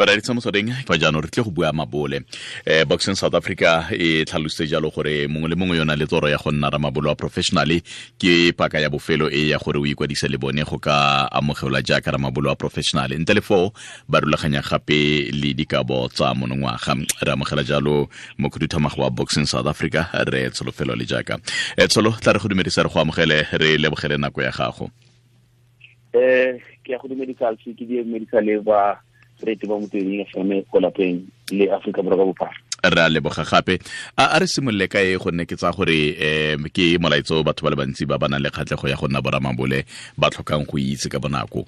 Bareetsa motsweding fa jaanong re tle go bua mabole. Boxing South Africa e tlhalositse jalo gore mongwe le mongwe yona le toro ya go nna ramabole wa professionally ke paka ya bofelo e ya gore o ikwadise le bone go ka amogelwa jaaka ramabole wa professional. Ntle le foo ba rulaganya gape le dikabo tsa monongwaga. Re amogela jalo mokhuduthamaga wa Boxing South Africa re Tsholofelo le jaaka. Tsholo, tla re go dumedisa, re go amogele, re lebogele nako ya gago. Ke ya go dumedisa, ke dumedisa le ba rete ba Motsweding FM ko lapeng le Aforika Borwa ka bophara. Re a leboga gape. A re simolole ka e, gonne ke tsaya gore ke molaetso batho ba le bantsi ba ba nang le kgatlhego ya go nna boramabole ba tlhokang go itse ka bonako.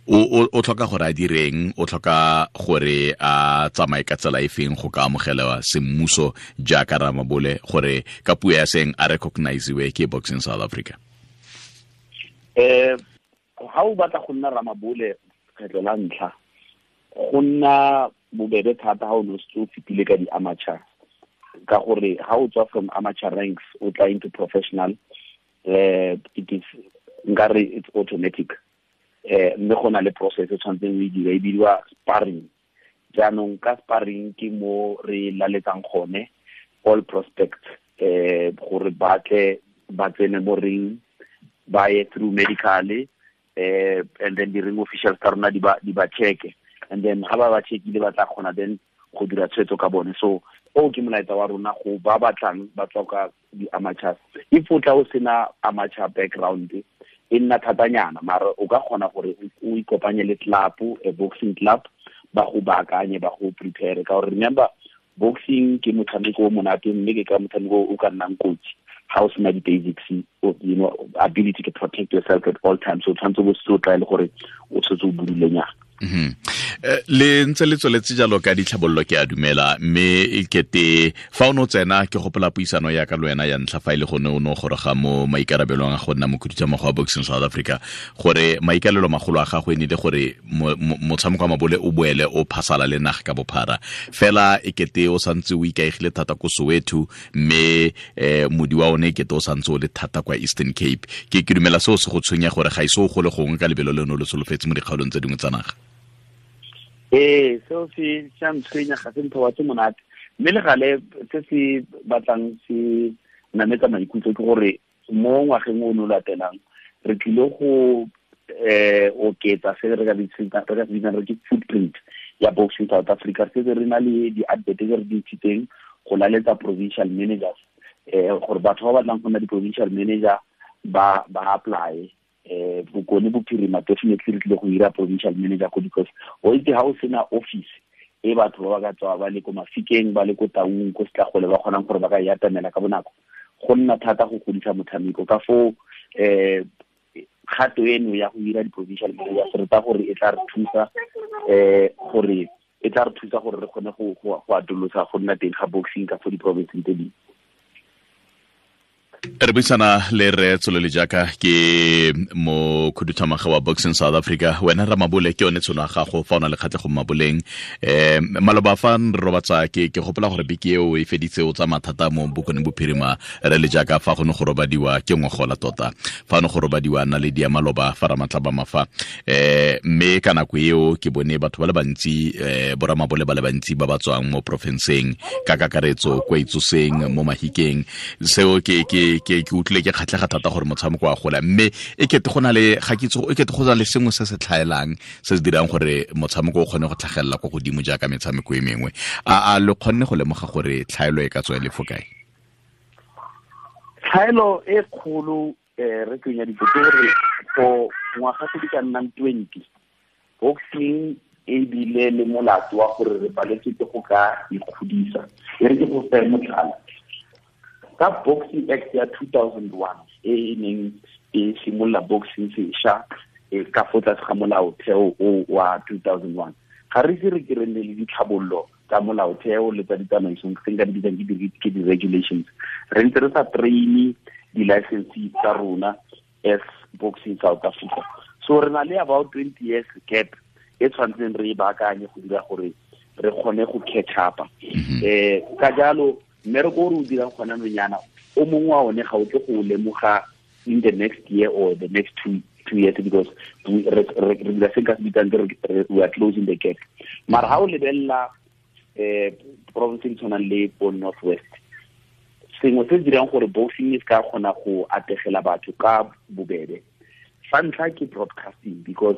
O tlhoka gore a direng, o tlhoka gore a tsamaye ka tsela e feng go ka amogelwa semmuso jaaka ramabole, gore ka puo ya seng a recognizewe ke Boxing South Africa? Ha o batla go nna ramabole kgetlho la ntlha, go nna bobebe thata ha o ne o setse o fetile ka di-amateur, ka gore ha o tswa from amateur ranks o tla into professional, it is, nkare, it's automatic. Mme go na le process e tshwanetseng o e dira, e bidiwa sparring. Jaanong ka sparring ke mo re laletsang gone all prospects gore ba tle ba tsene mo ring, ba ye through medical, and then di-ring officials tsa rona di ba check, and then ha ba ba checkile, ba tla kgona then go dira tshwetso ka bone. So o ke molaetsa wa rona go ba batlang ba tswa ka di-amateurs. If o tla o sena amateur background, e nna thatanyana, mara o ka kgona gore o ikopanye le club, a boxing club, ba go baakanye, ba go prepare, ka gore remember, boxing ke motshameko o monate, mme ke ka motshameko o ka nnang kotsi ha o sena di-basics, ability to protect yourself at all times. So tshwanetse bo se o tlwaele gore o tshwetse o budulenyana. Le ntse le tsweletse jalo ka ditlhabololo, ke a dumela, mme e kete fa o ne o tsena, ke gopola puisano ya ka le wena ya ntlha, fa e le gone o ne o goroga mo maikarabelong a go nna mokhuduthamaga wa Boxing South Africa, gore maikalelo magolo a gago e ne le gore motshameko wa mabole o boele o phasala le naga ka bophara. Fela e kete o santse o ikaegile thata ko Soweto, mme modi wa one e kete o santse o le thata kwa Eastern Cape. Ke dumela seo se go tshwenya gore ga ise o gole gongwe ka lebelo le ne o le solofetse mo dikgaolong tse dingwe tsa naga. Ee, seo se sa ntshwenya, ga se ntho wa tse monate, mme le gale se se batlang se nametsa maikutlo ke gore mo ngwageng o no latelang re tlile go oketsa se re ka se bitsang re ke footprint ya Boxing South Africa. Re setse re na le di-advert tse re di ntshitseng go laletsa provincial managers, gore batho ba batlang go nna di-provincial manager ba apply. Bokone Bophirima, definitely re tlile go hira provincial manager ko, because o itse ha o sena office e batho ba ba ka tswa ba le ko Mafikeng, ba le ko Taung, ko Setlagole, ba kgonang gore ba ka e atamela ka bonako, go nna thata go godisa motshameko. Ka foo kgato eno ya go hira di-provincial managers, re ta gore e tla re thusa gore e tla re thusa gore re kgone go atolosa go nna teng ga boxing ka fo di-provinceng tse dingwe. Re buisana le re Tsholole jaaka ke mo khuduthamaga wa Boxing South Africa. Wena ramabole, ke yone tshono ya gago fa o na le kgatlhego mo maboleng. Maloba fa re robatsa, ke gopola gore beke eo e feditse o tsa mathata mo Bokone Bophirima, re le jaaka fa go ne go robadiwa ke ngogola tota, fa ne go robadiwa naledi ya maloba fa ramatla ba mafa. Mme ka nako eo ke bone batho ba le bantsi, boramabole ba le bantsi ba ba tswang mo porofenseng ka kakaretso kwa Itsoseng, mo Mahikeng. Seo ke utlwile ke kgatlhega thata gore motshameko wa gola, mme e kete go na le, ga ke itse, e kete go na le sengwe se se tlhaelang se se dirang gore motshameko o kgone go tlhagelela kwa godimo jaaka metshameko e mengwe. A le kgonne go lemoga gore tlhaelo e ka tswa e le fo kae? Tlhaelo e kgolo, re tsenya ditso, ke gore for ngwaga tse di ka nnang 20, boxing e bile le molato wa gore re paletswe ke go ka ikgodisa. E re ke go fe motlhala ka Boxing Act ya 2001 e e neng e simolola boxing sešwa ka fo tlase ga molaotheo o wa 2001. Ga re ise re ke re nne le ditlhabololo tsa molaotheo le tsa ditsamaisong, se nka di bitsang ke di-regulations. Re ntse re sa train di-licenses tsa rona as Boxing South Africa, so re na le about 20 years gap e tshwanetseng re e baakanye go dira gore re kgone go catch up. Ka jalo mmereko o re o dirang gona nonyana o mongwe wa one ga o tle go o lemoga in the next year or the next two. 2 years, because re dira se ka se bitsang we are closing the gap. Mara ha o lebelela province di tshwanang le bo North West, sengwe se se dirang gore boxing e se ka kgona go ategela batho ka bobebe, sa ntlha ke broadcasting, because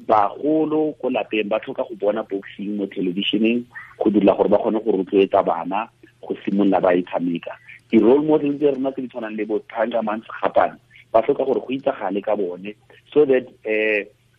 bagolo ko lapeng ba tlhoka go bona boxing mo televisioneng go dira gore ba kgone go rotloetsa bana go simolola ba e tshameka. Di-role model tse rona tse di tshwanang le bo Thangaman Sekgapane, ba tlhoka gore go itsagale ka bone so that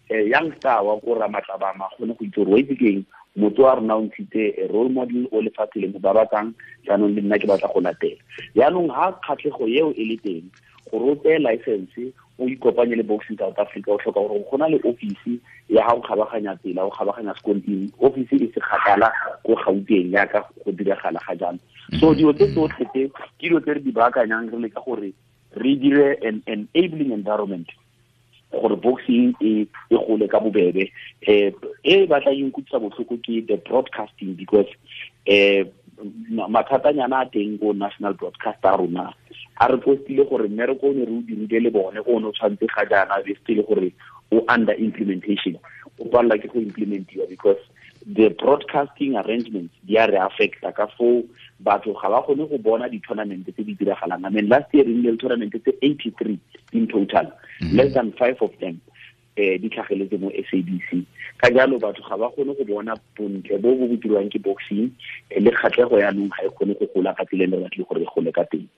youngster wa ko Ramatlabama kgone go itse gore, wa itse keng, motho wa rona o ntshitse a role model o lefatshe le mo babatsang, jaanong le nna ke batla go latela. Jaanong ha kgatlhego eo e le teng, gore o tseye license, o ikopanye le Boxing South Africa, o tlhoka gore go na le office ya ga o kgabaganya tsela, o kgabaganya sekontiri, office e se kgakala ko Gauteng yaka go diragala ga jalo. So dilo tse tsotlhe tse ke dilo tse re di baakanyang, re leka gore re dire an enabling environment gore boxing e gole ka bobebe. E batla e nkutlwisa botlhoko ke the broadcasting, because mathatanyana a teng ko national broadcaster rona a re postile gore mmereko o ne re o dirile le bone o ne o tshwanetse ga jaana be se le gore o under implementation, o palela ke go implementiwa, because the broadcasting arrangements di a re affecta ka foo batho ga ba kgone go bona di-tournament tse di diragalang. I mean, last year re nnile le tournament tse 83 in total, less than five of them di tlhageletse mo SABC. Ka jalo batho ga ba kgone go bona bontle bo bo dirwang ke boxing, le kgatlhego yaanong ga e kgone go gola ka tsela e re batle gore e gole ka teng.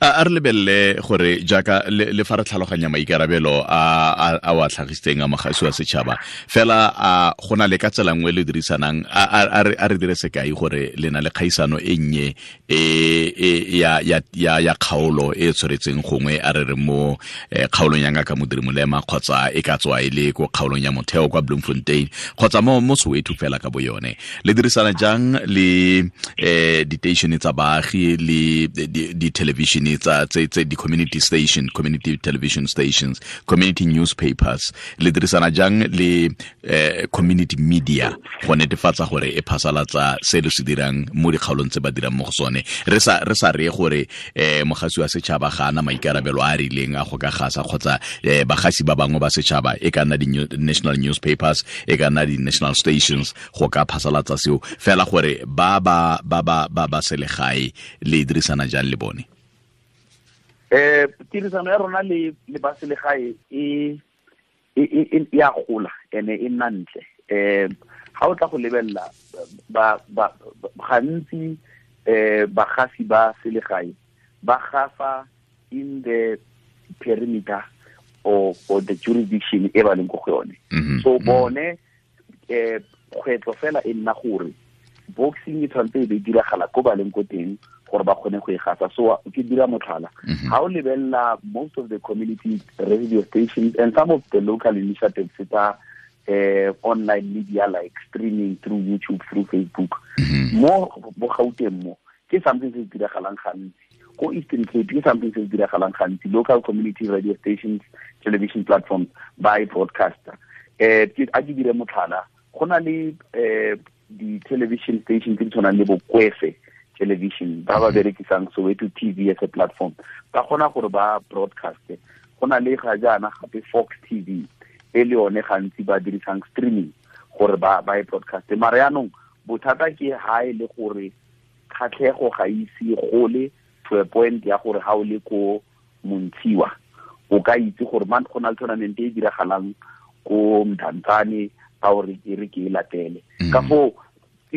A re lebelele gore jaaka le fa re tlhaloganya maikarabelo a wa tlhagisitseng a mogasi wa setšhaba fela, a go na le ka tsela nngwe le dirisanang? A re dire sekai gore le na le kgaisano e nnye e ya kgaolo e tshwaretseng gongwe, a re re mo kgaolong ya Ngaka Modiri Molema, kgotsa e ka tswa e le ko kgaolong ya Motheo kwa Bloemfontein, kgotsa mo Soweto fela ka bo yone. Le dirisana jang le diteišene tsa baagi le di-television tsa tse di-community station, community television stations, community newspapers? Le dirisana jang le community media go netefatsa gore e phasalatsa se le se dirang mo dikgaolong tse ba dirang mo go sone? Re sa re gore mogasi wa setšhaba ga ana maikarabelo a a rileng a go ka gasa, kgotsa bagasi ba bangwe ba setšhaba, e ka nna di-national newspapers, e ka nna di-national stations, go ka phasalatsa seo fela, gore ba selegae le dirisana jang le bone? Tirisano ya rona le ba selegae e ya gola ene e nna ntle. Ga o tla go lebelela, ba gantsi bagasi ba selegae ba gasa in the perimeter or the jurisdiction e ba leng ko go yone. So bone kgwetlho fela e nna gore boxing e tshwanetse e be diragala ko ba leng ko teng gore ba kgone go e gasa. So ke dira motlhala, ga o lebelela most of the community radio stations and some of the local initiatives tsa online media, like streaming through YouTube, through Facebook, mo bo Gauteng mo ke something se se diragalang gantsi, ko Eastern Cape ke something se se diragalang gantsi, local community radio stations, television platforms ba e broadcaster. A ke dire motlhala, go na le di-television station tse di tshwanang le bo Kwese Television ba ba berekisang Soweto TV as a platform, ba kgona gore ba broadcast. Go na le ga jaana gape Fox TV e le yone gantsi ba dirisang streaming gore ba e broadcast. Mara yaanong bothata ke ha e le gore kgatlhego ga ise gole to a point ya gore ha o le ko Montshiwa o ka itse gore man go na le tournament e diragalang ko Mdantsane, a o re e re ke e latele. Ka foo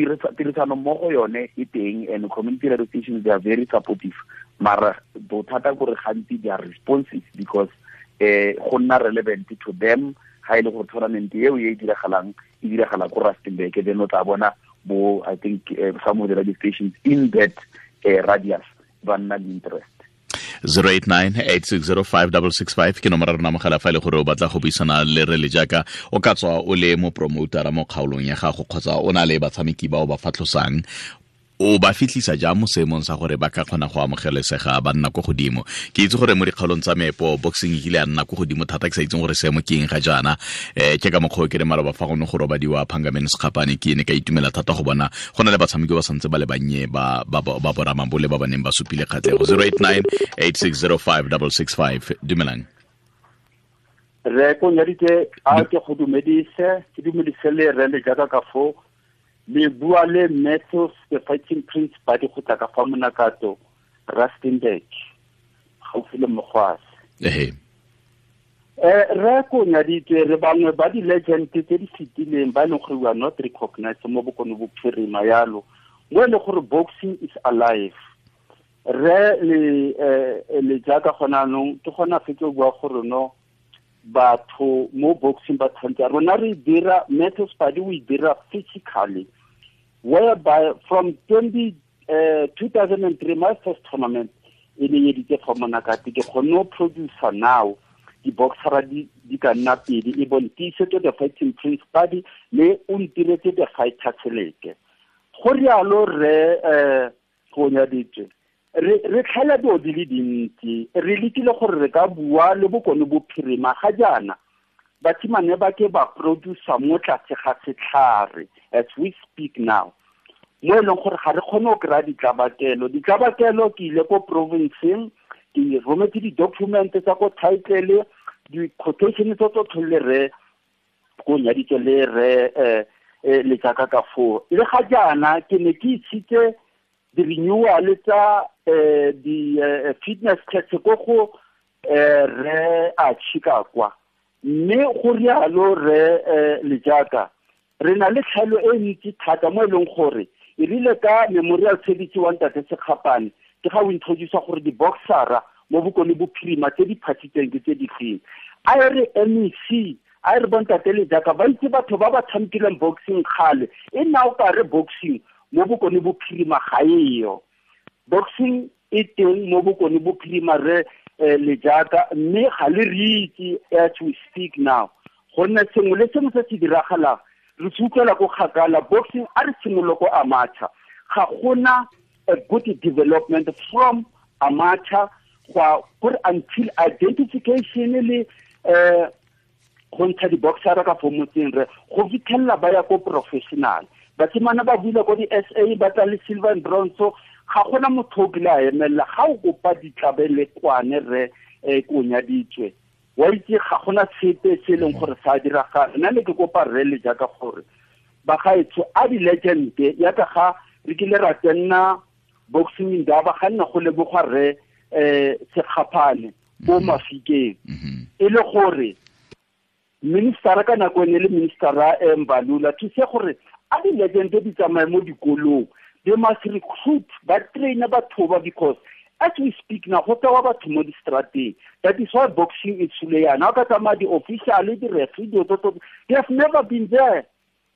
tirisano mmogo yone e teng, and community radio stations, they are very supportive, mara bothata kore gantsi they are responsive because go nna relevant to them ha e le gore tournament eo e diragalang e diragala ko Rustenburg, then o tla bona bo, I think, some of the radio stations in that radius ba nna le interest. 089 860 5665 ke nomoro rona mogala fa e le gore o batla go buisana le re le jaaka o ka tswa o le mo promotera mo kgaolong ya gago, kgotsa o na le batshameki ba o ba fatlhosang, o ba fitlhisa jang mo seemong sa gore ba ka kgona go amogelesega, ba nna ko godimo? Ke itse gore mo dikgaolong tsa meepo boxing e kile ya nna ko godimo thata, ke sa itseng gore seemo ke eng ga jaana. Ke ka mokgwa o ke re maloba fa gone go robadiwa Phangamene Sekgapane, ke ne ka itumela thata go bona go na le batshameki ba santse ba le bannye ba boramabole ba ba neng ba supile kgatlhego. 089 860 5665. Dumelang. Re ko nyaditse a ke go dumedise, ke dumedise le re le jaaka ka fo le bua le Matthews the Fighting Prince ba di go tla ka fa Monakato, Rustenburg, gaufi le Mogwase. Ehe. Re ko nyaditse re bangwe ba di-legend tse di fetileng ba e leng gore we are not recognized mo Bokone Bophirima yalo, mo e leng gore boxing is alive. Re le jaaka gona anong ke gona fetse o bua gore no batho mo boxing ba tshwanetse rona re dira Matthews Padi o e dira physically, whereby from 2003 my first tournament e ne editse fa Monakate, ke kgonne go producer now di-boxera di ka nna pedi, e bong Tiisetso the Fighting Prince Padi le o ntiretse the Fighter Seleke. Go rialo re go nyaditswe re tlhaela dilo di le dintsi, re lekile gore re ka bua le Bokone Bophirima ga jaana basimane ba ke ba producer mo tlase ga setlhare as we speak now, mo e leng gore ga re kgone go kry-a ditlabakelo. Ditlabakelo ke ile ko provinceng, ke rometse di-document tsa ko title, di-quotation tse tsotlhe le re ko nyaditse le re le jaaka ka foo. Le ga jaana ke ne ke isitse di-renewal tsa di-fitness test ko go re a tšhika kwa, mme go rialo re le jaaka re na le tlhaelo e ntsi thata mo e leng gore e rile ka memorial service wa ntate Sekgapane ke ga o introduce gore di-boxera mo Bokone Bophirima tse di phathitseng ke tse di feng. A e re MEC, a e re bontate le jaaka ba itse batho ba ba tshamekileng boxing kgale, e nna o ka re boxing mo Bokone Bophirima ga eyo. Boxing e teng mo Bokone Bophirima re le jaaka, mme ga le re itse as we speak now, gonne sengwe le sengwe se se diragalang re se utlwela ko kgakala. Boxing a re simolole ko amateur, ga gona a good development from amateur gore until identification le go ntsha di-boxera ka fo motseng re go fitlhelela ba ya ko professional. Basimane ba buile ko di-SA ba tla le silver and bronze, ga gona motho o kile a emelela ga o kopa ditlabelekwane re ko nyaditswe wa itse ga gona sepe se e leng gore sa diragala. Nna ne ke kopa rre le jaaka gore bagaetsho a di-legend yaka ga re kile ra tsenna boxing indaba ga nna go lebogwa rre Sekgapane ko Mafikeng, e le gore ministera ka nako e ne le ministera Mbalula thuse gore a di-legend di tsamaye mo dikolong, they must recruit ba train batho ba, because as we speak now go tsewa batho mo di-strateng. That is why boxing e tshule yana, o ka tsamaya di-official di-referee dilo tse, they have never been there.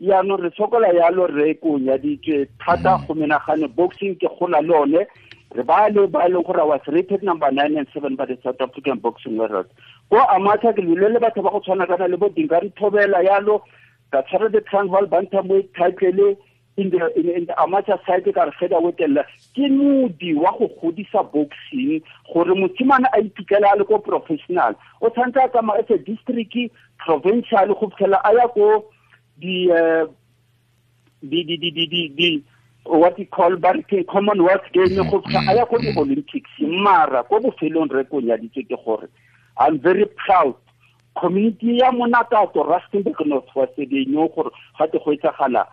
Yaanong re sokola yalo re ko nyaditswe thata go menagane boxing ke gola le one re ba le ba leng gore was rated number 9 and 7 by the South African Boxing World. Ko amateur ke lwile le batho ba go tshwana kana le bo Dingari Thobela yalo, ka tshwara the Transvaal Bantamweight title in the amateur side ka re featherweight ella. Ke modi wa go godisa boxing gore mosimane a iphitlhele a le ko professional, o tshwanetse a tsamaya as a district, provincial go fitlhela a ya ko di what you call barke Commonwealth Games go fitlha a ya ko di-Olympics. Mara ko bofelong re ko nyaditse ke gore I'm very proud community ya Monakato Rustenburg North West they know gore ga te go etsagala.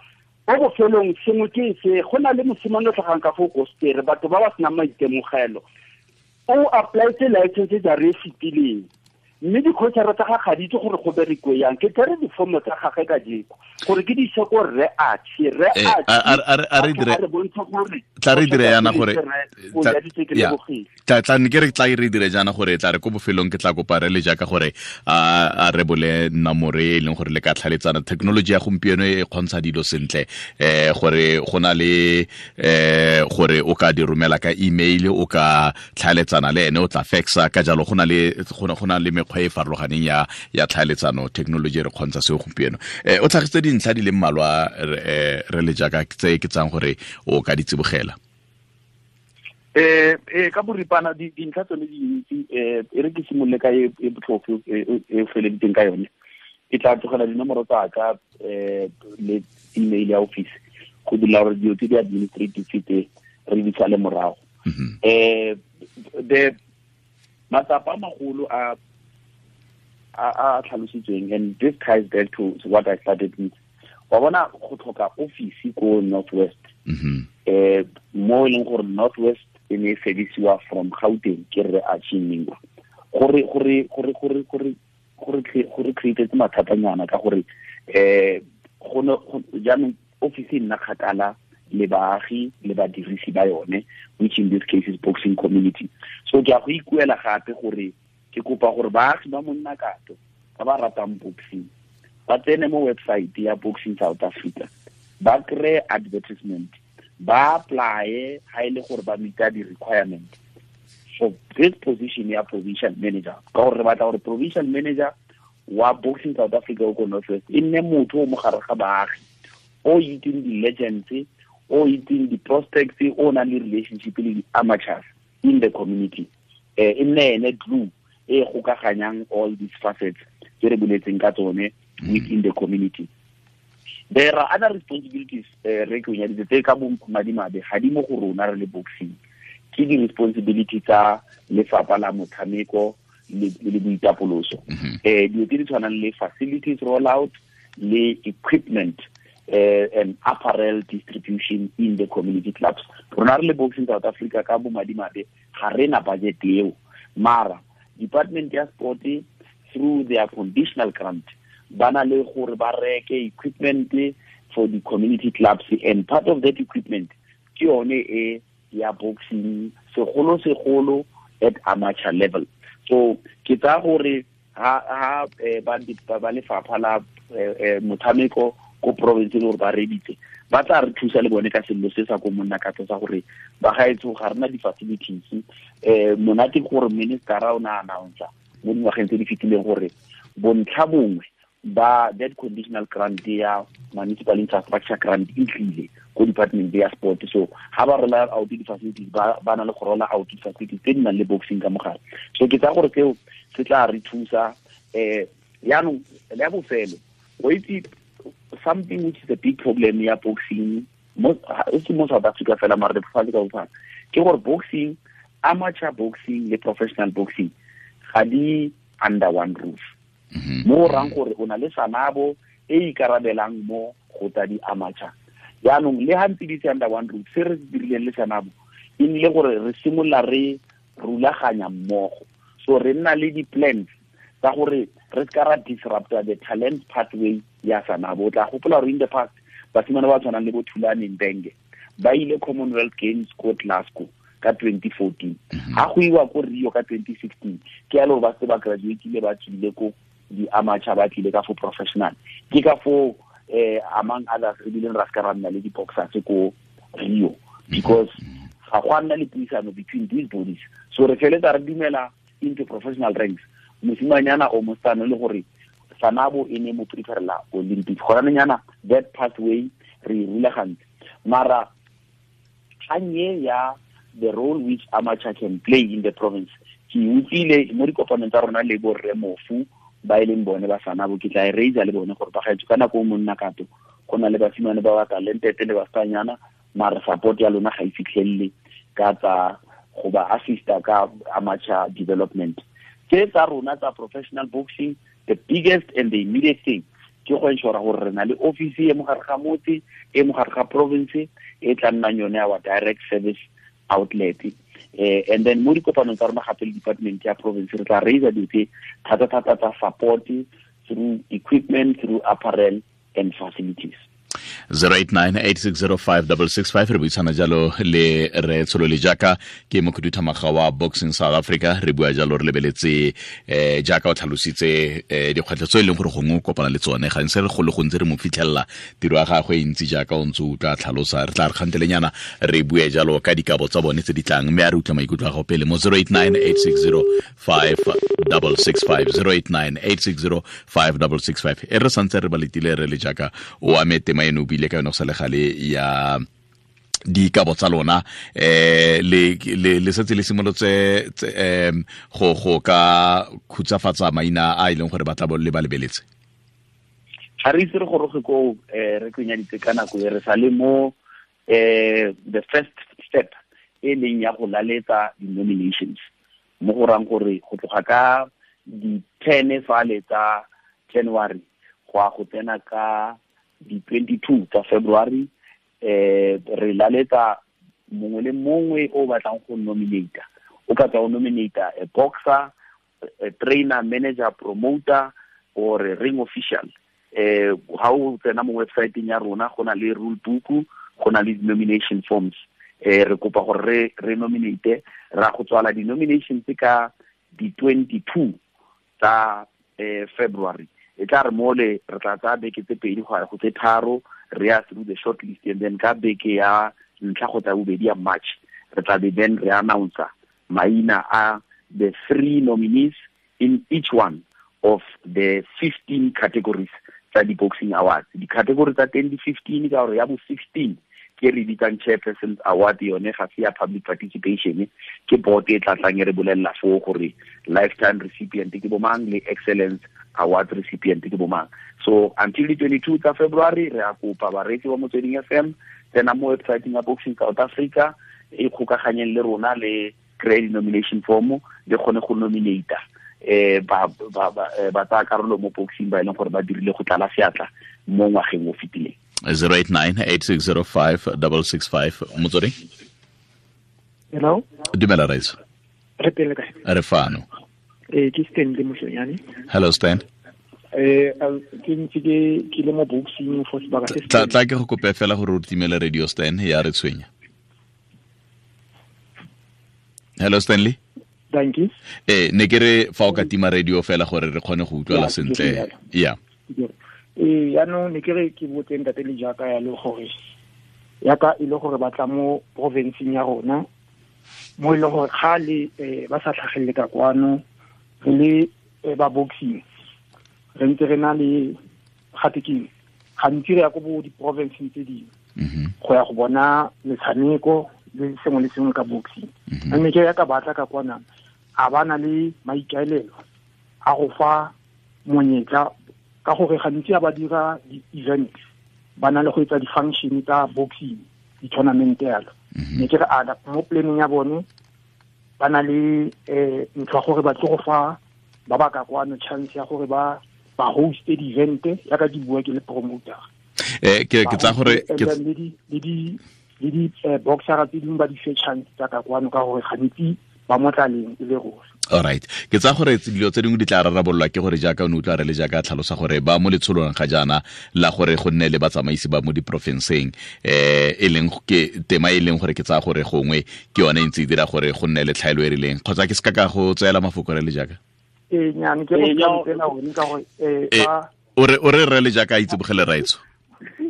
Ko bofelong sengwe ke se go na le mosimane o tlhagang ka fo Kostere, batho ba ba senang maitemogelo, o applyetse license ja re fetileng, mme di-coachara tsa gagwe ga di itse gore go berekiwe yang. Ke tsere difomo tsa gagwe kajeko gore ke di ise ko rre Archie, rre Archie a re bontsha gore tla re dire yana gore tla ne ke re tla re dire jaana gore tla re ko bofelong ke tla kopa re le jaaka gore a re bole nomoro e leng gore le ka tlhaletsana. Technology ya gompieno e kgontsha dilo sentle, gore go na le gore o ka di romela ka email, o ka tlhaletsana le ene, o tla faxa ka jalo. Go na le mekgwa e farologaneng ya tlhaeletsano, technology re kgontsha seo gompieno. O tlhagisitse dintlha di le mmalwa re le jaaka tse ke tsang gore o ka di tsibogela. Ka boripana dintlha tsone di dintsi, e re ke simolole ka e botlhofo e feleditseng ka yone. Ke tla tlogela dinomoro tsa ka le email ya office go dira gore dilo tse di administrative tse re di sale morago. The matsapa a magolo a a tlhalositsweng, and this ties back to what I started with. Wa bona go tlhoka office ko Northwest. Mo e leng gore Northwest e ne e fedisiwa from Gauteng ke re a Mingwa. Gore create mathatanyana ka gore go jaanong office e nna kgakala le baagi le badirisi ba yone, which in this case is boxing community. So ke a go ikuela gape gore ke kopa gore baagi ba monna kato ba ba ratang boxing ba tsene mo website ya Boxing South Africa, ba kry advertisement, ba apply ha ile gore ba meet di requirement for this position ya provincial manager. Ka gore re batla gore provincial manager wa Boxing South Africa ko Northwest e nne motho o mo gare ga baagi, o itseng di-legends, o itseng di-prospects, o nang le relationship le di-amateurs in the community. E nne ene glue e gokaganyang all these facets tse re boletseng ka tsone within the community. There are other responsibilities re ke o nyaditse tse ka bo madimabe ga di mo go rona re le boxing. Ke di-responsibility tsa lefapha la motshameko le boitapoloso. Dilo tse di tshwanang le facilities rollout le equipment and apparel distribution in the community clubs. Rona re le Boxing South Africa ka bo madimabe ga re na budget eo, mara department ya sport through their conditional grant ba na le gore ba reke equipment for the community clubs, and part of that equipment ke yone e ya boxing segolo at amateur level. So ke tsaya gore ha ba lefapha la motshameko ko province le gore ba reditse ba tla re thusa le bone ka sello se sa ko monna ka tsa gore ba gaetso ga rena di-facilities. Monate gore minister o na announce mo dingwageng tse di fetileng gore bontlha bongwe ba that conditional grant ya municipal infrastructure grant e tlile ko department ya sport. So ha ba rola out di-facilities ba na le go rola out di-facilities tse di nang le boxing ka mogare. So ke tsaya gore seo se tla re thusa. Yaanong le ya bofelo, o itse something which is a big problem ya boxing mo South Africa fela mara lefatshe ka bophara ke gore boxing, amateur boxing le professional boxing ga di under one roof. Mo rang gore o na le Sanabo e ikarabelang mo go tsa di amateur. Jaanong le ha ntse di under one roof, se re dirileng le Sanabo e nnile gore re simolola re rulaganya mmogo. So re nna le di-plans tsa gore re ska ra disrupta the talent pathway ya Sanabo. O tla gopola gore in the past basimane ba tshwanang le bo Thulani Mbenge ba ile Commonwealth Games ko Glasgow ka 2014, ha go iwa ko Rio ka 2016, ke ya le gore ba se ba graduatile ba tswile ko di-amateur ba tlile ka fo professional. Ke ka fo among others re bileng ra ska ra nna le di-boxers ko Rio, because ga go a nna le puisano between these bodies. So re feletsa re dumela into professional ranks mosimanyana o mosetsana le gore Sanabo e ne mo preferela Olympics. Gona that pathway re e rulagantse. Mara kganye ya the role which amateur can play in the province, ke utlwile mo dikopanong tsa rona le borre Mofu ba e leng bone ba Sanabo, ke tla e raisa le bone gore ba gaetso ka nako o monna kato go na le basimane ba ba talented le basanyana, mara support ya lona ga e fitlhelele ka tsa go ba assista ka amateur development. Tse tsa rona tsa professional boxing, the biggest and the immediate thing ke go ensure gore re na le office e mo gare ga motse, e mo gare ga province, e tla nnang yone our direct service outlet. And then mo dikopanong tsa rona gape le department ya province re tla raisa dilo tse thata-thata tsa support through equipment, through apparel and facilities. 089-860-5665 re buisana jalo le re Tsholole Jaaka ke mokhuduthamaga wa Boxing South Africa. Re bua jalo re lebeletse jaaka o tlhalositse dikgwetlho tse e leng gore gongwe o kopana le tsone gantsi re go le gontsi re mo fitlhelela tiro ya gagwe e ntsi jaaka o ntse o tla tlhalosa. Re tla re kgantelenyana re bue jalo ka dikabo tsa bone tse di tlang, mme a re utlwa maikutlo a gago pele mo 089-860-5665 089-860-5665. E re santse re ba letile re le Jaaka o ame tema eno bile ka yone go sa le gale ya dikabo tsa lona, le setse le simolotse go ka khutsafatsa maina a e leng gore ba tla le ba lebeletse. Ga re itse re goroge ko re kenyaditse ka nako e re sa le mo the first step e leng ya go laletsa di-nominations, mo go rang gore go tloga ka Di 10 fale tsa January go a go tsena ka di 22 tsa February. Re laletsa mongwe le mongwe o batlang go nominata. O ka tswa o nominata a boxer, a trainer, manager, promoter or a ring official. Ha o tsena mo websiteng ya rona, go na le rule book, go na le nomination forms. Re kopa gore re nominate. Ra go tswala di-nomination tse ka di 22 tsa February. E tla re mole re tla tsaya beke tse 2 go ya go tse 3, re ya through the short list, and then ka beke ya ntlha go tsa bobedi ya March, re tla be then re announce maina a the three nominees in each one of the 15 categories tsa di-boxing awards. Di-category tsa teng di 15, ka gore ya bo 16 ke re bitsang Chairperson's Award. Yone ga se ya public participation, ke board e tla tlang e re bolelela foo gore lifetime recipient ke bomang le excellence award recipient ke bomang. So until the 22 tsa February, re a kopa bareetsi ba Motsweding FM, tsena mo websiteng ya Boxing South Africa, e kgokaganyeng le rona, le kry nomination form, le kgone go nominata ba tsaya karolo mo boxing ba e leng gore ba dirile go tlala seatla mo ngwageng o fetileng. 089 8605 665, Motsweding. Hello. Dumela, raitso. Re pele kae? Re fano. Ke Stanley Moshonyane. Hello, Stan. Ke ntse ke le mo boxing for sebaka se. Tla ke go kope fela gore o timele radio, Stan, ya re tshwenya. Hello, Stanley. Thank you. Ne ke re fa o ka tima radio fela gore re kgone go utlwala sentle ya. Yaanong ne ke re ke botse ntate le jaaka ya le gore yaka e le gore batla mo provinceng ya rona, mo e leng gore kgale ba sa tlhagelele ka kwano, re le ba boxing re ntse re na le gate keng, gantsi re ya ko bo di-provinceng tse dingwe go ya go bona metshameko le sengwe le sengwe ka boxing. Mme ke ya ka batla ka kwana, a ba na le maikaelelo a go fa monyetla, ka gore gantsi a ba dira di-event, ba na le go etsa di-function tsa boxing, di-tournament yalo. Ne ke re a mo planning ya bone ba na le ntho ya gore ba tlo go fa ba ba ka kwano chance ya gore ba hoste di-event, ya ka di bua ke le promoter. Ke tsa gore Le di boxera tse dingwe ba di fe chance tsa ka kwano, ka gore gantsi ba mo tlaleng e le ruri. Alright, ke tsa gore dilo tse dingwe di tla rarabololwa ke gore jaaka o ne utlwa re le jaaka tlhalosa gore ba mo letsholong ga jaana la gore go nne le batsamaisi ba mo diporofenseng, e leng ke tema e leng gore ke tsaya gore gongwe ke yone e ntse e dira gore go nne le tlhaelo e rileng, kgotsa ke se ka go tseela mafoko, re le jaaka. Ee, nyane ke go tsela one ka gore ba O re re le jaaka a itsebogele, raitso.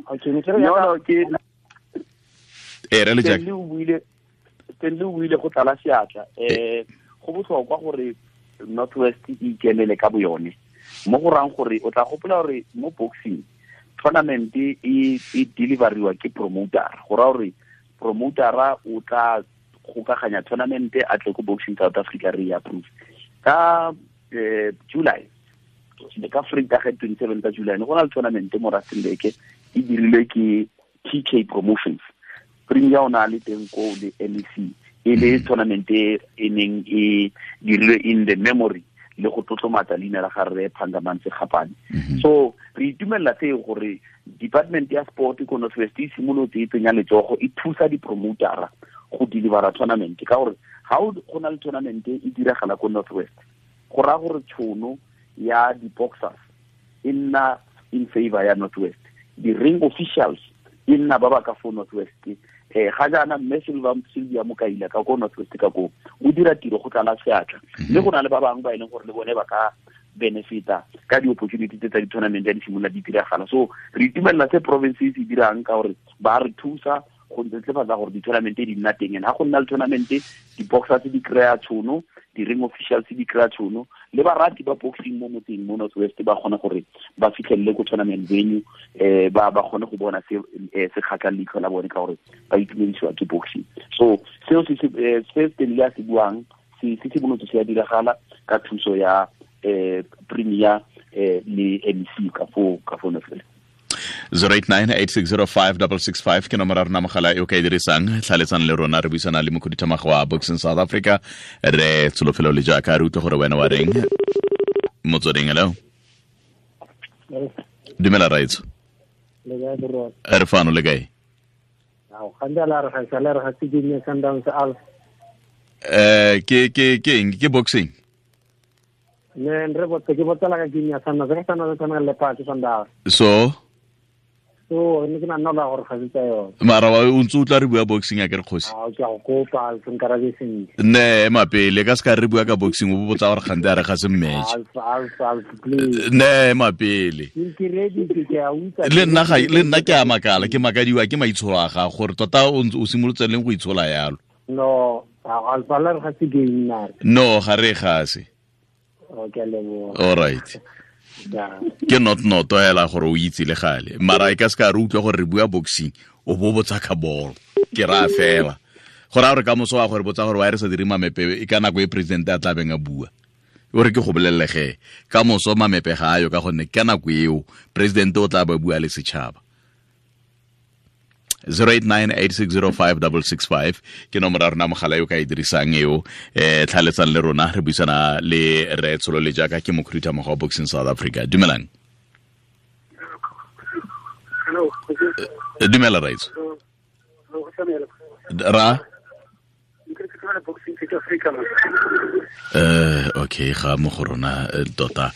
Okay, ne ke re No, no, ke Re le jaaka. Stanley o buile go tlala seatla. Go botlhokwa gore North West e ikemele ka boyone, mo go rang gore o tla gopola gore mo boxing tournament e deliveriwa ke promoter. Go raya gore promotera o tla gokaganya tournament, a tle ko Boxing South Africa, re e approve ka July. Ka Vrydag 27 tsa July ne go na le tournament mo Rustenburg, e dirilwe ke TK Promotions. Premier o na le teng ko le MEC, e le tournament e e neng e dirilwe in the memory le go tlotlomatsa leina la ga rre Phangamantse Gapane. So re itumelela seo gore department ya sport ko North West e simolotse e tsenya letsogo, e thusa di-promotera go delivera tournament, ka gore ga go na le tournament e diragala ko North West, go raya gore tšhono ya di-boxers e nna in favor ya North West, di-ring officials e nna ba ba ka fo North West. Ga jaana mme Silva Sylvia Mokaila ka ko North West ka ko o dira tiro go tlala seatla, mme go na le ba bangwe ba e leng gore le bone ba ka benefita ka di-opportunity tse tsa di-tournament ya di simolola di diragala. So re itumelela se province e se dirang, ka gore ba re thusa go netefatsa gore di-tournament di nna teng. And ga go nna le tournament, di-boxers di kry-a tšhono, di-ring officials di kry-a tšhono, le barati ba boxing mo motseng mo North West ba kgona gore ba fitlhelele ko tournament venue, ba kgone go bona se se kgatlhang leitlho la bone, ka gore ba itumedisiwa ke boxing. So seo se Stanley a se buang se simolotse se a diragala ka thuso ya premier le MEC ka fo North West. 0898605665 ke nomoro ya rona mogala e o ka e dirisang tlhaletsang le rona. Re buisana le mokhuduthamaga wa Boxing South Africa, re Tsholofelo le jaaka re utlwe gore wena wa reng. Motsweding, hello. Dumela raitso. Re fano le kae? Ke ke ke eng? Ke boxing. Ne re botse ke botsela ka game ya Sundowns, re Sundowns tshameka le Leopard Sundowns. So ne ke nna la gore ga se tsa yone. Mara wa o ntse o tla re bua boxing a ke re kgosi. A ke go kopa se nkarabe sentle. Ne mapele ka se ka re bua ka boxing o botsa gore gante a re ga se match. Alf please. Ne mapele. Ke ready ke a utlwa. Le nna ga le nna ke a makala, ke makadiwa ke maitsholo a ga gore tota o ntse o simolotse leng go itshola yalo. No, Alf la re ga se game na. No, ga re ga se. Okay, lebo. All right. Ke not noto hela gore o itse le gale. Mara e ka se ka re utlwa gore re bua boxing, o bo botsa ka bolo. Ke ra fela. Gore a re ka moso wa gore botsa gore wa re sa dire mamepe e ka nako e president a tla beng a bua. O re ke go bolelle ge ka moso mamepe ga ayo ka gonne ka nako eo president o tla ba bua le setšhaba. 0898605665 ke nomoro ya rona mogala yo ka e dirisang eo, tlhaletsang le rona re buisana le re Tsholo le jaaka ke mokhuduthamaga wa Boxing South Africa. Dumelang. Dumela raitso. Ra okay, ga mo go rona tota.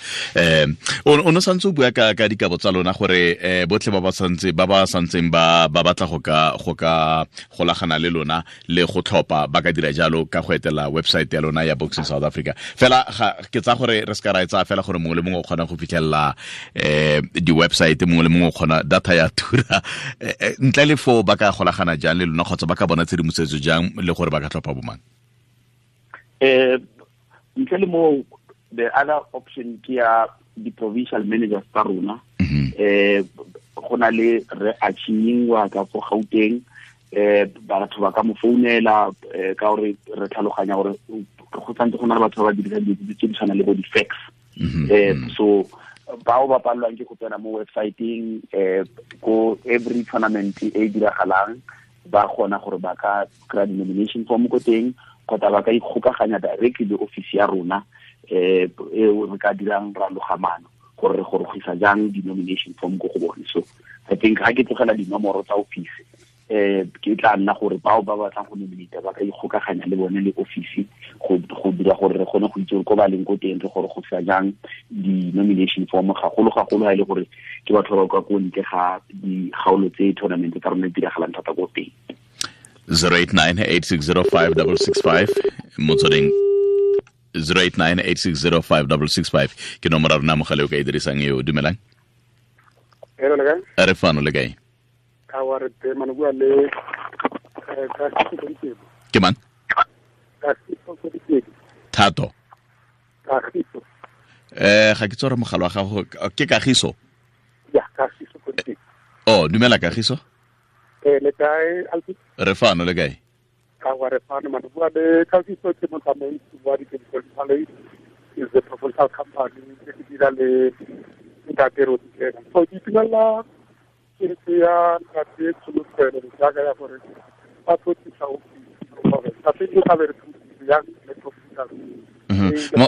O no santse o bua ka dikabo tsa lona gore botlhe ba ba santse ba ba santseng ba ba batla go ka golagana le lona le go tlhopa ba ka dira jalo ka go etela website ya lona ya Boxing South Africa. Fela ke tsa gore re se ka ra e tsaya fela gore mongwe le mongwe o kgona go fitlhelela di-website, mongwe le mongwe o kgona data ya tura. Ntle le foo ba ka golagana jang le lona kgotsa ba ka bona tshedimosetso jang le gore ba ka tlhopha bomang? Ntle le mo, the other option ke ya di-provincial managers tsa rona. Go na le re Achinyingwa ka fo Gauteng, batho ba ka mo founela, ka gore re tlhaloganya gore go santse go na le batho ba ba dirisang dilo tse di tshwanang le bo di-fax. So bao ba palelwang ke go tsena mo websiteng, ko every tournament e e diragalang ba kgona gore ba ka kry-a di-nomination form ko teng, kgotsa ba ka ikgokaganya directly le office ya rona, eo re ka dirang ra logamano gore re gorogisa jang di-nomination form ko go bone. So I think ga ke tlogela dinomoro tsa office, ke tla nna gore bao ba batlang go nominate ba ka ikgokaganya le bone le office go dira gore re kgone go itse gore ko ba leng ko teng re gorogisa jang di-nomination form, gagolo gagolo ha e le gore ke batho ba ba kwa ko ntle ga dikgaolo tse tournament tsa rona di diragalang thata ko teng. 0898605665 motsweding 0898605665 ke nomoro ya rona mogala o ka e dirisang eo. Dumelang. Hello, le kae? Re fano le kae? Ka wa re teng, mane bua le Kagiso. Ke mang? Kagiso. Thato. Kagiso. Ga ke tsore mogala wa gago ke Kagiso. Ya, Kagiso. Oh, dumela Kagiso. Le kae Alfi? Re fano le kae? Ka wa re fano mane bua le Kagiso, ke motsamaisi wa di-Chemical is the proposal company ke dira le ntate Roteng. So ke itumella keletso ya ntate Tsholofelo jaaka ya gore ba tlo tlisa ofisi gore ntate e tla be re thusitse yang le proposal.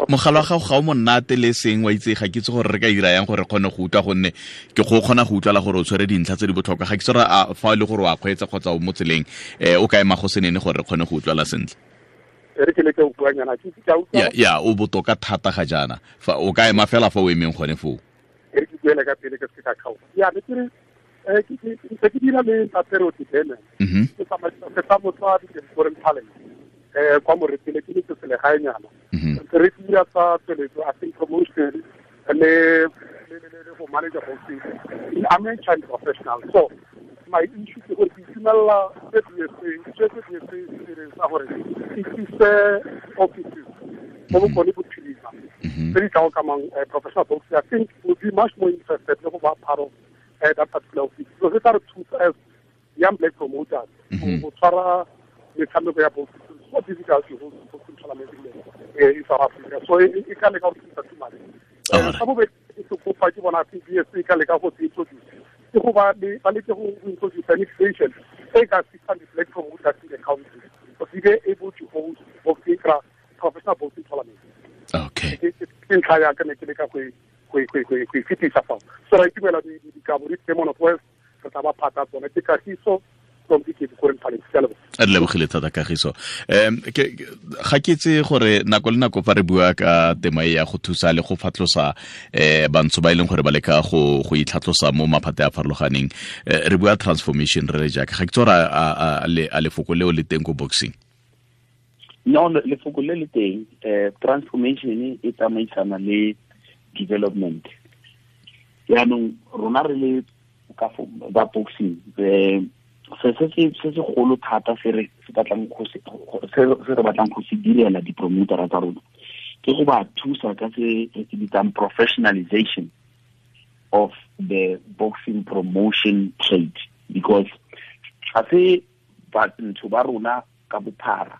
Mogala wa gago ga o monate le seng wa itse, ga ke itse gore re ka dira yang gore re kgone go utlwa, gonne ke go kgona go utlwala gore o tshwere dintlha tse di botlhokwa. Ga ke itse gore fa e le gore wa kgweetsa kgotsa o mo tseleng, o ka ema go senene gore re kgone go utlwala sentle. Re ke leke go buanyana, ke itse ke a utlwa. Ya, o botoka thata ga jaana. Fa o ka ema fela fa o emeng gone foo. E re ke buele ka pele ke se ka kgaoga. Ya, ne ke re, ke ke dira le ntate Roteng. Ke tsamaisa setlamo sa di-foreign talent. Kwa Moretele ke le selegaenyana. Re dira tsa tsweletso, I think promotion le go manager boxing. I'm a child professional. So my issue ke gore ke itumella se BSA se gore e tlise offices mo bokone bophirima tse di tla okamang professional boxing. I think we'll be much more interested le go ba part of that particular office. So se tla re thusa as young black promoters go tshwara metshameko ya boxing. So difficult to hold boxing tournament in South Africa. So e ka leka go thusa too much. Sa bobedi ke kopa ke bona BSA e ka leka go introduce ke go ba leke go introduce an inflation e ka assistant the black promoters in the country to be able to hold boxing professional boxing tournament. Okay. Ke ntlha ya ka ne ke leka go e fetisa fao. So ra itumela dikabo di teng mo North West, re tla ba phata tsone. Ke Kagiso from Dikebukoreng Talent. Ke a leboga. Re lebogile thata Kagiso. Ga ke itse gore nako le nako fa re bua ka tema e ya go thusa le go fatlosa bantsho ba e leng gore ba leka go itlhatlosa mo maphate a farologaneng, re bua transformation re le jaaka ga ke itse gore a lefoko leo le teng ko boxing. No, lefoko le le teng. Transformation e tsamaisana le development. Yaanong rona re le ka ba boxing, se segolo thata se re batlang go se direla di-promotera tsa rona ke go ba thusa ka se re se bitsang professionalization of the boxing promotion trade, because ga se batho ba rona ka bophara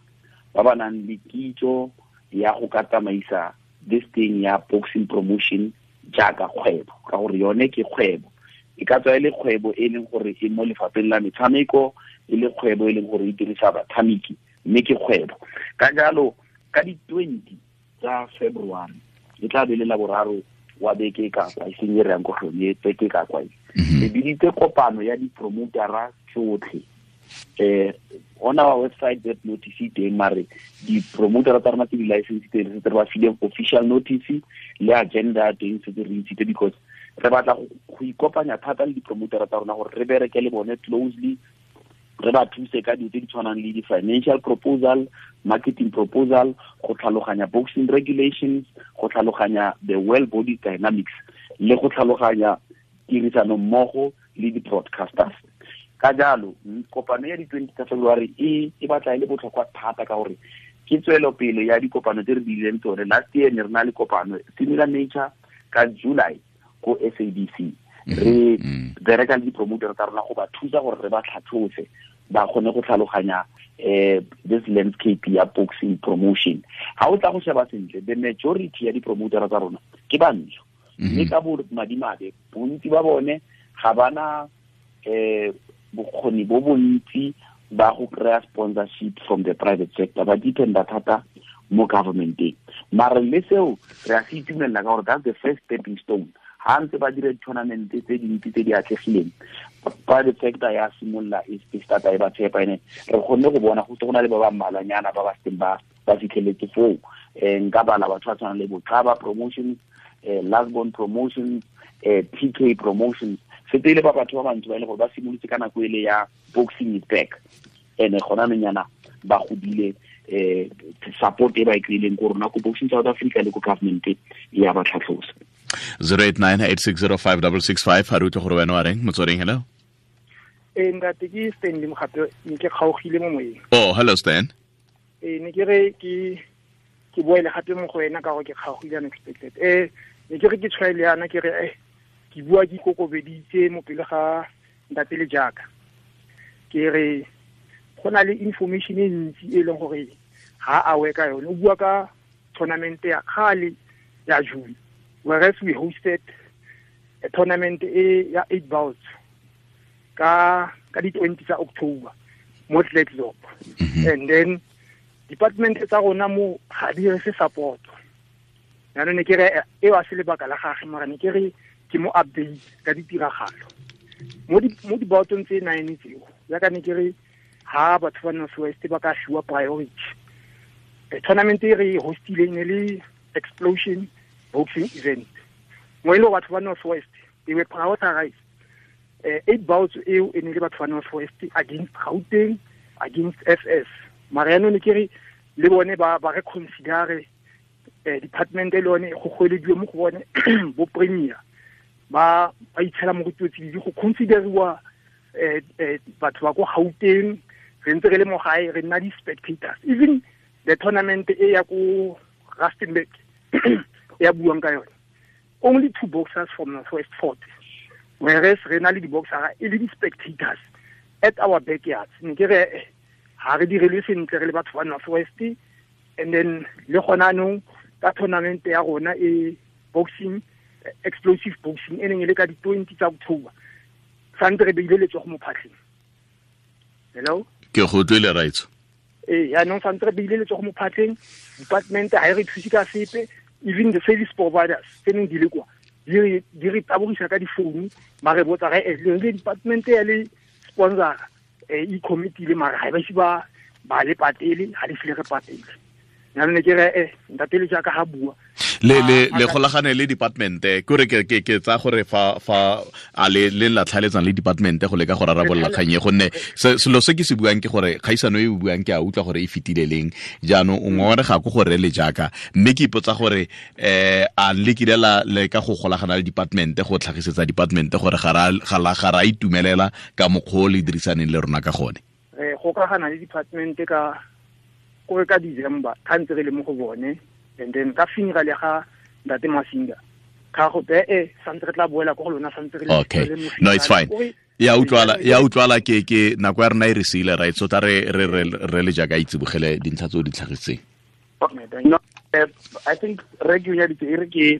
ba ba nang le kitso ya go ka tsamaisa this thing ya boxing promotion jaaka kgwebo, ka gore yone ke kgwebo. E ka tswa e le kgwebo e leng gore e mo lefapheng la metshameko, e le kgwebo e leng gore e dirisa batshameki, mme ke kgwebo. Ka jalo ka di-20 tsa February e tla be le laboraro wa beke ka kwa, e seng e re yang ko go yone, beke ka kwa e. Re biditse kopano ya di-promotera tsotlhe. On our website that notice teng, mare di-promotera tsa rona tse di-license teng re setse re ba file official notice le agenda teng setse re ntshitse, because re batla go ikopanya thata le di-promotera tsa rona gore re bereke le bone closely, re ba thuse ka dilo tse di tshwanang le di-financial proposal, marketing proposal, go tlhaloganya boxing regulations, go tlhaloganya the well body dynamics, le go tlhaloganya tirisano mmogo le di-broadcasters. Ka jalo kopano ya di-20 tsa February e batla e le botlhokwa thata, ka gore ke tswelopele ya dikopano tse re dirileng tsone. Last year ne re na le kopano similar nature ka July ko SABC, re bereka le di-promoter tsa rona go ba thusa gore re ba tlhatlhose ba kgone go tlhaloganya this landscape ya boxing promotion. Ha o tla go sheba sentle, the majority ya di-promoter tsa rona ke bantsho, mme ka bo madimabe bontsi ba bone ga bana bokgoni bo bontsi ba go kry-a sponsorship from the private sector, ba dependa thata mo governmenteng. Mare le seo re a se itumelela ka gore that's the first stepping stone. Ha ntse ba dira di-tournament tse dintsi tse di atlegileng, private sector ya simolola e starta e ba tshepa, ene re kgonne go bona go se go na le ba ba mmalwanyana ba ba seng ba fitlheletse foo. Nka bala batho ba tshwanang le Boxaba Promotions, Lasbon Promotions, TK Promotions, setse le ba batho ba bantsi ba e le gore ba simolotse ka nako ele ya boxing is back, ene gona nonyana ba godile support e ba e kry-ileng ko rona ko Boxing South Africa le ko government ya ba tlhatlhosa. 0898605665, ha re utlwe gore wena wa reng. Motsweding, hello. Ntate ke Stanley Mogape, ne ke kgaogile mo moyeng. Oh, hello Stan. Ne ke re ke boele gape mo go wena ka gore ke kgaogile unexpected. Ne ke re ke tshwaele yana, ke re ke bua ke ikokobeditse mo pele ga ntate le jaaka. Ke re go na le information e ntsi e leng gore ga a we ka yone. O bua ka tournament ya kgale ya June, whereas we hosted a tournament e ya 8 bouts ka di-20 tsa October mo Klerksdorp. And then department tsa rona mo ga di re se support. Jaanong ne ke re eo a se lebaka la gagwe, mara ne ke re ke mo update ka ditiragalo mo dibaotong tse 9 tseo. Jaaka ne ke re ha batho ba North West ba ka fiwa priority. Tournament e re hostileng ne le Explosion Boxing Event, mo e leng batho ba North West they were prioritized. 8 bouts eo e ne le batho ba North West against Gauteng, against FS. Mara yaanong ne ke re le bone ba re considere department e le yone go goelediwe mo go bone bo premier ba itshela mo go tsididi go consideriwa batho ba ko Gauteng. Re ntse re le mo gae, re nna di-spectators. Even the tournament e ya ko Rustenburg ya buang ka yone, only 2 boxers from North West fought, whereas re na le di-boxera e le di-spectators at our backyards. Ne ke re ha re direlwe sentle re le batho ba North West. And then le gona anong ka tournament ya rona e boxing, explosive boxing e neng e le ka di-20 tsa October, santse re beile letsogo mo phatlheng. Hello, ke go utlwile raitso. Yaanong santse re beile letsogo mo phatlheng, department ha e re thuse ka sepe. Even the service providers tse neng di le kwa di re tabogisa ka difounu, ba re botsa re le department ya le sponsor e committee le mara ga ba ise ba le patele, ga le file re patele. Jaanong ne ke re ntate le jaaka ga bua le golagane le department ke re ke tsa gore fa a le la tlhaletsang le department go leka go rarabolola kgang e, gonne selo se ke se buang ke gore kgaisano e o buang ke a utlwa gore e fetile leng. Jaanong o ngongorega ko gore le jaaka, mme ke ipotsa gore a le kile la leka go golagana le department go tlhagisetsa department gore ga ra itumelela ka mokgwa o le dirisaneng le rona ka gone. Re gokagana le department ka gore ka December ka ntse re le mo go bone, and then ka funeral ya ga ntate Masinga ka go be santse re tla boela go lona santse re le. Okay, no, it's fine. Ya utlwala ke nako ya rena e re siile, right? So tla re le jaaka itsibogele dintlha tse o di tlhagisitseng. No, I think re ke ya ditse re ke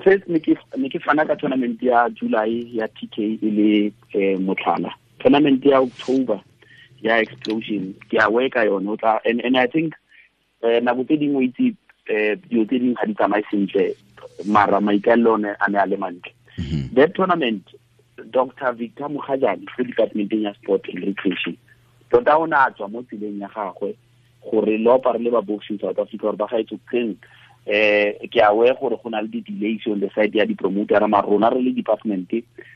first ne ke fana ka tournament ya July ya TK e le motlhala. Tournament ya October ya explosion ke a worka yone o tla, and I think nako tse dingwe itse dilo tse dingwe ga di tsamaye sentle, mara maikaelelo one a ne a le mantle. That tournament, Dr. Victor Mogajane ko departmenteng ya sport and recreation tota o ne a tswa mo tseleng ya gagwe gore le opare le ba boxing South Africa gore ba gaetso keng. Ke a we gore go na le di-delays on the side ya di-promoter, mara rona re le department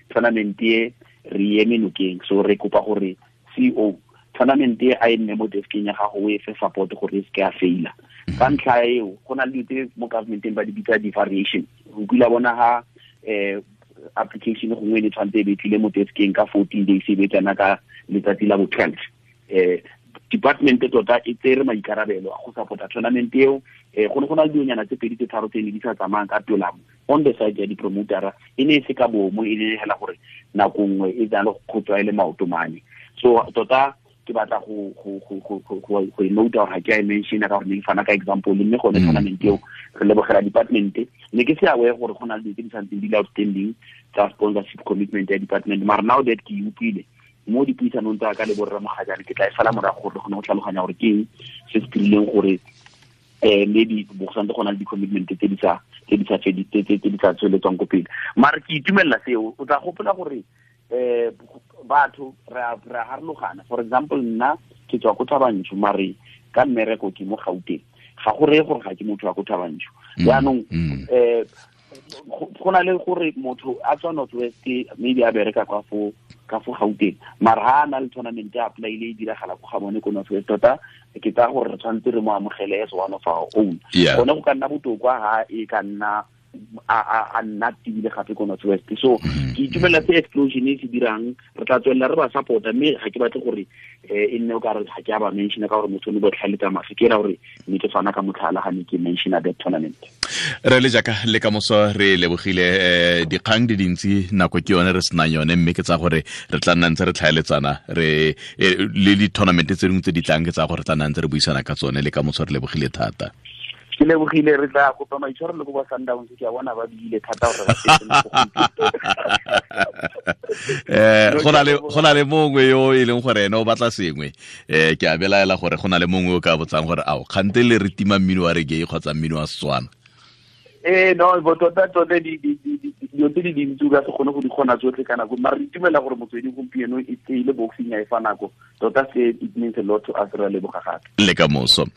tournament e re eme nokeng, so re kopa gore CEO tournament e a e nne mo deskeng ya gago o e fe support gore e seke ya faila. Ka ntlha eo go na le dilo tse mo governmenteng ba di bitsa di-variation. O kile bona ha application gongwe e ne tshwanetse e be tlile mo deskeng ka 14 days e be tsena ka letsatsi la bo 12. Department tota e tsere maikarabelo a go support-a tournament eo. Go ne go na le dilonyana tse pedi tse tharo tse ne di sa tsamayang ka tolamo on the side ya di-promotera, e ne e se ka bomo, e ne hela gore nako nngwe e tsana le go tswa e le maoto mane. So tota ke batla go e note gore ga ke a e mention-a ka gore ne ke fana ka example, mme gone tournament eo re lebogela department. Ne ke se aware gore go na le dilo tse di santseng di le outstanding tsa sponsorship commitment ya department, mara now that ke e utlwile mo dipuisanong tsa ka le borra Mogajane, ke tla e sala morago gore re kgone go tlhaloganya gore ke eng se se dirileng gore maybe bo santse go na le di-commitment tse di sa tsweletswang ko pele. Mara ke itumelela seo. O tla gopola gore batho re a harologana. For example, nna ke tswa ko Thabanchu, mare ka mmereko ke mo Gauteng, ga go reye gore ga ke motho wa ko Thabanchu. Jaanong go na le gore motho a tswa North West maybe a bereka ka fo Gauteng, mara ha a na le tournament ya apply-ile e diragala ko ga bone ko North West, tota ke tsaya gore re tshwanetse re mo amogele as one of our own. Gone go ka nna botoka ha e ka nna a nna tibile gape ko North West. So ke itumelela se explosion e se dirang, re tla tswelela re ba support-a, mme ga ke batle gore e nne o ka re ga ke a ba mention-a ka gore motho o ne botlhale tsa mafe, ke era gore ne ke fana ka motlhala ga ne ke mention-a that tournament. Re le jaaka le ka moso re lebogile dikgang di dintsi, nako ke yone re senang yone, mme ke tsa gore re tla nna ntse re tlhaeletsana re le di-tournament tse dingwe tse di tlang, ke tsa gore re tla nna ntse re buisana ka tsone. Le ka moso re lebogile thata. Ke lebogile, re tla kopa maitshwaro le ko ba Sundowns, ke a bona ba bile thata gore ba setse go na le mongwe yo e leng gore ene o batla sengwe, ke a belaela gore go na le mongwe o ka botsang gore ao kgante le re tima mmino wa reggae kgotsa mmino wa Setswana. No, bo tota dilo tse di dintsi o ka se kgone go di kgona tsotlhe ka nako, mara re itumela gore motsweding gompieno e tseile boxing ya e fa nako tota, se it means a lot to us. Re a leboga gape le ka moso.